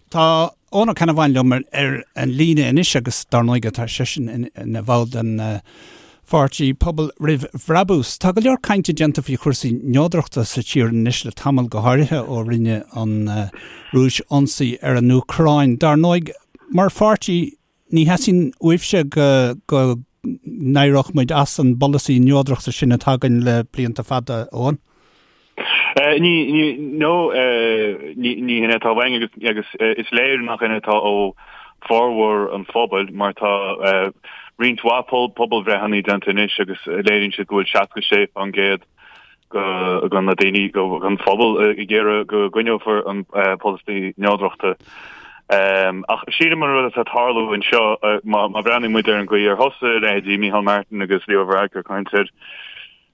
Tá Eoin Ó Ceannabháin liom ar an líne anois agus dar ndóigh tá seisean ina bhall den pháirtí Pobal Roimh Bhrabús. Tá go leor cainte déanta faoi chúrsaí neodrachta sa tír anois le tamall, go háirithe ó rinne an Rúis ionsaí ar an Úcráin. Dar ndóigh, mar pháirtí ní theastaíonn uaibhse go go n-éireodh muid as an bpolasaí neodrachta sin atá againn le blianta fada, Eoin. Ní, ní, no, ní, ní hin atá uainn agus, agus is léir nach hin atá ó formhór an phobail mar tá roinnt mhaith pobalbhreitheanna déanta anois agus léiríonn siad go bhfuil 66% de na daoine, den phobal ag iarraidh go gcoinneofar an polasaí neodrachta. Ach sílim an rud atá ag tarlú anseo, má bhreathnaíonn muid ar an gcaoi ar thosaigh leithéidí Micheál Martin agus Leo Varadkar ag caint ar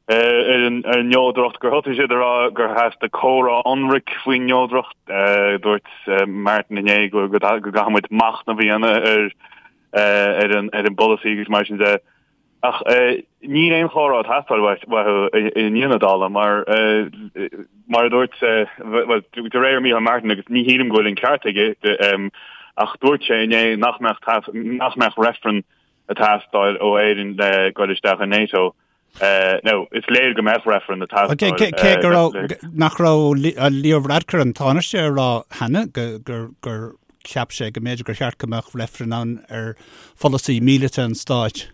ar an neodracht, gur thosaigh siad ag rá gur theastaigh comhrá ionraic faoin neodracht. Dúirt Martin inné go gcaithfidh muid machnamh a dhéanamh ar ar an ar an bpolasaí agus mar sin de. Ach níl aon chomhrá ag teastáil uathu i ndiaidh na dála mar mar a dúirt bhuel de réir Micheál Martin agus ní shílim go bhfuil an ceart aige ach dúirt sé inné nach mbeadh nach mbeadh reifreann ag teastáil ó Éirinn le goil isteach i NATO. Now, is léir go mbeadh reifreann ag teastáil. Cé go raibh, nach raibh Leo Varadkar an Tánaiste ag rá cheana gur cheap sé go mb'fhéidir gur cheart go mbeadh reifreann ann ar pholasaí míleata an stáit?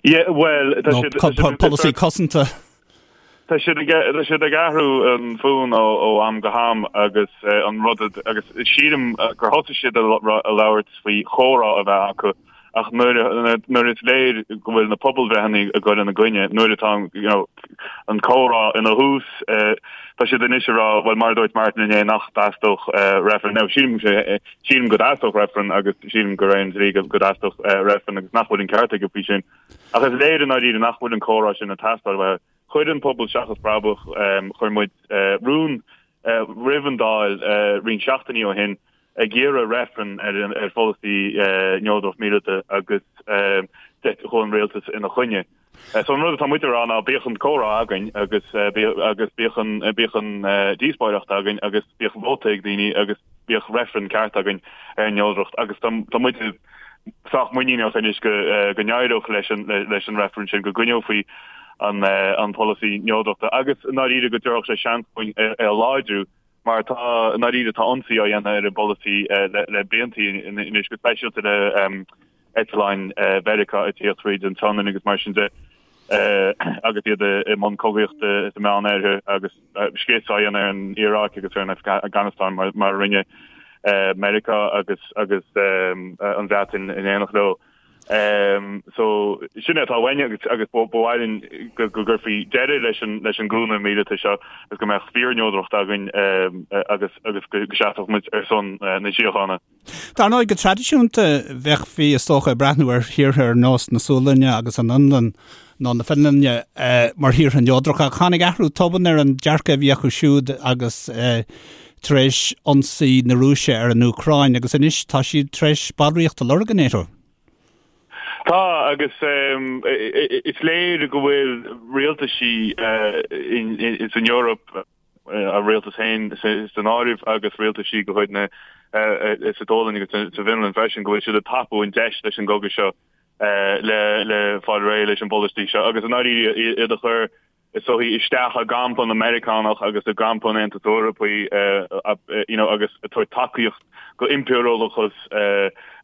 Yeah, well, tá siad... Nó polasaí cosanta. Tá siad ag, tá siad ag athrú an fonn ó, ó am go ham agus an rud agus sílim gur thosaigh siad ag labhairt faoi chomhrá a bheith acu ach nuair nuair is léir go bhfuil na pobalbhreitheanna ag dul ina gcoinne, nuair atá you know, an comhrá ina thús, tá siad anois ag rá, bhuel mar a dúirt Martin inné nach dteastódh reifreann. Now sílim, sílim go dteastódh reifreann agus sílim gur aon dlí go dteastódh reifreann agus nach bhfuil an ceart aige faoi sin. Ach is léir i ndáiríre nach bhfuil an comhrá sin ag teastáil uathu. Chuir an Pobal Seachas Brabach, chuir muid rún roimh an Dáil roinnt seachtainí ó shin ag iarraidh reifreann ar pholasaí neodracht míleata agus chuaigh an rialtas ina choinne. So an rud atá muid a rá ná bíodh an comhrá againn agus agus bíodh an bíodh an díospóireacht againn agus bíodh vóta ag daoine agus bíodh reifreann ceart againn ar an neodracht agus tá tá muid sách muiníneach anois go go n-éireodh leis an leis an reifreann sin go gcoinneofaí an an polasaí neodrachta agus i ndáiríre go dtabharfadh sé seans dúinn é a láidriú Mar tá, i ndáiríre, tá ionsaí á dhéanamh ar an bpolasaí le blianta anois, go speisialta le eitleáin Mheiriceá ag tíocht thríd an tSionainn agus mar sin de, agus iad i mbun cogaíochta sa Meánoirthear agus scrios á dhéanamh ar an Iaráic agus ar an Afganastáin mar a rinne Meiriceá agus agus an Bhreatain in éineacht leo. So, sin é atá uainn agus agus ba mhaith linn go gcuirfí deireadh leis an leis an gcúnamh míleata seo agus go mbeadh fíorneodracht againn agus agus go seasfadh muid ar son na síochána. Dar ndóigh, go traidisiúnta bheifí is dócha ag breathnú ar thíortha ar nós na Sualainne agus an Fhionlainn nó na Fionlainne mar thíortha neodracha ach tháinig athrú tobann ar an dearcadh a bhí acu siúd agus tar éis ionsaí na Rúise ar an Úcráin agus anois tá siad tar éis ballraíocht a lorg i NATO. Tá, agus is léir go bhfuil rialtaisí san Eoraip, a rialtas féin san áireamh agus rialtaisí de chuid na sa tSualainn agus sa bhFionlainn freisin, go bhfuil siad ag tapú an deis leis an gcogadh seo le fáil réidh leis an bpolasaí seo agus i ndáiríre iad a chur is dóichí, isteach i gcampa na Meiriceánach agus i gcampa an Aontais Eorpaigh you know agus ag tabhairt tacaíocht go impiriúlachas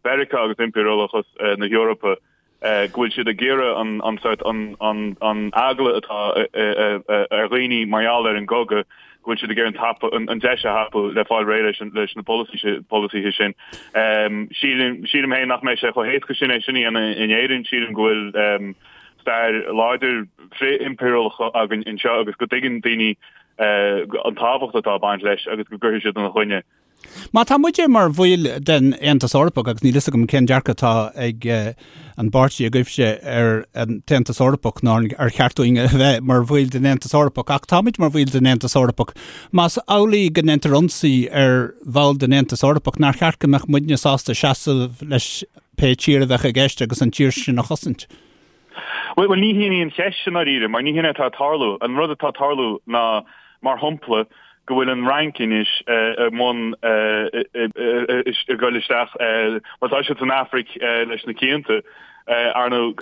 Mheiriceá agus impiriúlachas na hEorpa go bhfuil siad ag iarraidh an an sort an an an eagla atá ar dhaoine mar gheall ar an gcogadh go bhfuil siad ag iarraidh an tapa an deis a thapú le fáil réidh leis an leis na polasaithe sin. Sílim sílim féin nach mbeidh sé chomh héasca sin é sin a dhéanamh in Éirinn. Sílim go bhfuil stair láidir frith-impiriúlach againn anseo agus go dtuigeann daoine an tábhacht atá ag baint leis agus go gcuirfidh siad ina choinne. Má tá muide mar bhaill den Aontas Eorpach, agus níl fhios agam cén dearcadh atá ag an bpáirtí agaibhse ar an tAontas Eorpach ná ar cheart dúinn a bheith mar bhaill den Aontas Eorpach, ach táimid mar bhaill den Aontas Eorpach. Más amhlaidh go ndéantar ionsaí ar bhall den Aontas Eorpach, nár cheart go mbeadh muidne sásta seasamh leis pé tír a bheadh i gceist agus an tír sin a chosaint? Bhuel, ní hin í an cheist i ndáiríre, mar ní hin é atá ag tarlú. An rud atá ag tarlú ná, mar shampla, go bhfuil an Fhrainc anois i mbun. ag dul isteach, má tá siad san Afraic leis na cianta, ar ndóigh,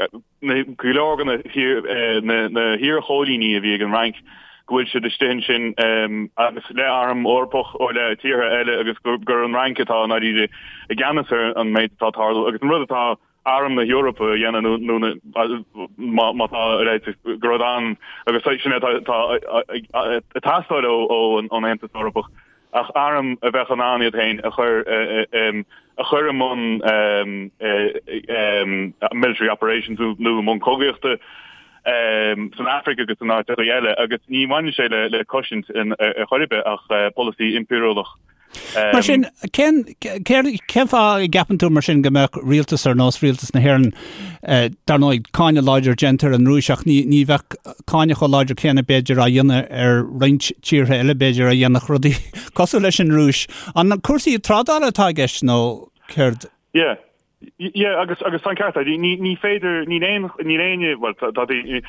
go leor de na hiar-choilíní a bhí ag an Fhrainc, go bhfuil siad istigh ansin agus le arm Eorpach ó le tíortha eile agus gur an Fhrainc atá i ndáiríre i gceannas ar an méid atá ag tarlú agus an rud atá arm na hEorpa a dhéanamh nó má má tá a leithéid de rud ann agus sin é atá ag teastáil ón Aontas Eorpach ach arm a bheadh in ann iad féin a chur a chur i mbun military operations nó i mbun cogaíochta san Afraic agus in áiteacha eile agus ní bhaineann sé le cosaint ar chor ar bith ach polasaí impiriúlach. Mar sin, cén, cén fáth a gceapann tú mar sin go mbeadh rialtas ar nós rialtas na hÉireann, dar ndóigh, cáineadh láidir déanta ar an Rúis ach ní, ní bheadh cáineadh chomh láidir céanna b'fhéidir á dhéanamh ar roinnt tíortha eile b'fhéidir a dhéanfadh rudaí cosúil leis an Rúis. An cúrsaí trádála atá i gceist nó céard? Yeah. Yeah, agus agus tá an ceart agat. Ní ní féidir níl aon níl éinne bhuel tá tá ní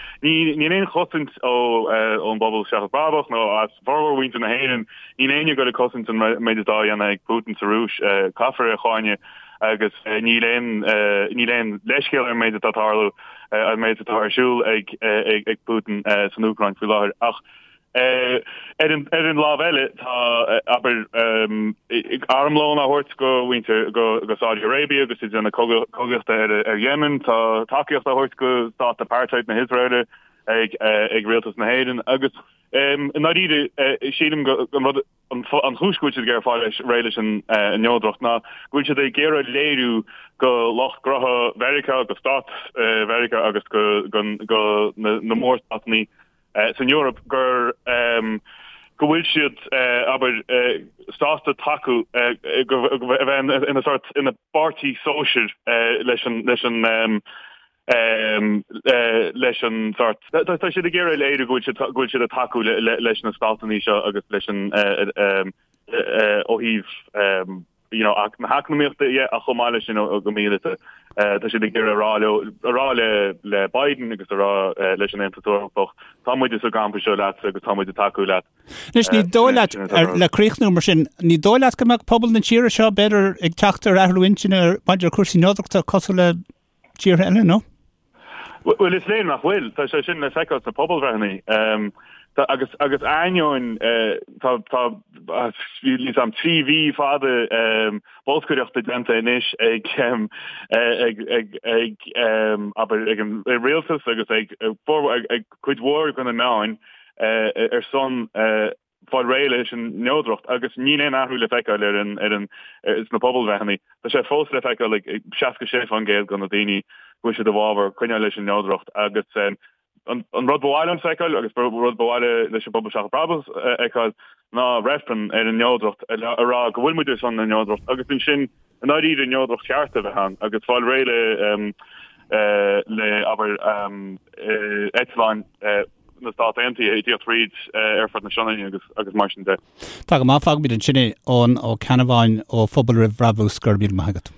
níl aon chosaint ó ón bpobal seachas brabach nó as formhór mhuintir na hÉireann níl éinne ag dul ag cosaint an méid atá á dhéanamh ag Putin sa Rúis. Caithfear é a cháineadh agus níl aon níl aon leithscéal ar an méid atá ag tarlú an méid atá ar siúl ag ag ag Putin san Úcráin faoi láthair. Ach Ar an ar an lámh eile, tá, abair, armlón á thabhairt go mhuintir go go Saudi Arabia agus iad ag déanamh cogaíochta ar ar Yemen, tá tacaíocht á thabhairt go stát apartheid na hIosraeile ag ag rialtas na hÉireann agus i ndáiríre sílim go an rud an chúis go bhfuil siad ag iarraidh fáil réidh leis an neodracht ná go bhfuil siad ag iarraidh léiriú go lucht gnótha Mheiriceá, go stát Mheiriceá agus go go na mórstátanna san Eoraip gur go bhfuil siad, abair, sásta tacú go a bheith ina sórt ina bpáirtí sóisir leis an leis an leis an sórt. Tá siad ag iarraidh léiriú go bhfuil siad go bhfuil siad ag tacú leis na státanna seo agus leis an ó thaobh you know, na heacnamaíochta dhe ach chomh maith leis sin go míleata. Tá siad ag iarraidh a rá leo, a rá le le Biden agus a rá leis an Aontas Eorpach, tá muide sa gcampa seo leatsa agus tá muid ag tacú leat. Anois ní dóigh leat, le críochnú mar sin, ní dóigh leat go mbeadh pobal na tíre seo b'fhéidir ag teacht ar athrú intinne maidir le cúrsaí neodrachta cosúil le tíortha eile, nó? Bhuel, is léir nach bhfuil. Tá sé sin le feiceáil sna pobalbhreitheanna. Tá, agus, agus ainneoin, tá, tá, níl a fhios agam, 3 mhí fada bolscaireachta déanta anois ag, ag, ag, ag, abair, ag an rialtas agus ag, ag cuid mhór de na meáin ar son fáil réidh leis an neodracht agus níl aon athrú le feiceáil ar an, ar an, sna pobalbhreitheanna. Tá sé fós le feiceáil ag 66% de na daoine go bhfuil siad i bhfabhar coinneáil leis an neodracht agus an, an rud ba mhaith liom feiceáil agus rud ba mhaith leis an bpobal Seachas Brabús a fheiceáil ná reifreann ar an neodracht a rá go bhfuil muid ar son na neodracht agus ansin i ndáiríre neodracht cheart a bheith ann agus fáil réidh le, le abair, eitleáin na Stát Aontaithe ag tíocht fríd aerfort na Sionainne agus agus mar sin de. Tá go maith, fágfaimid ansin é, Eoin Ó Ceannabháin ó Phobal Roimh Bhrabús, go raibh míle maith agat.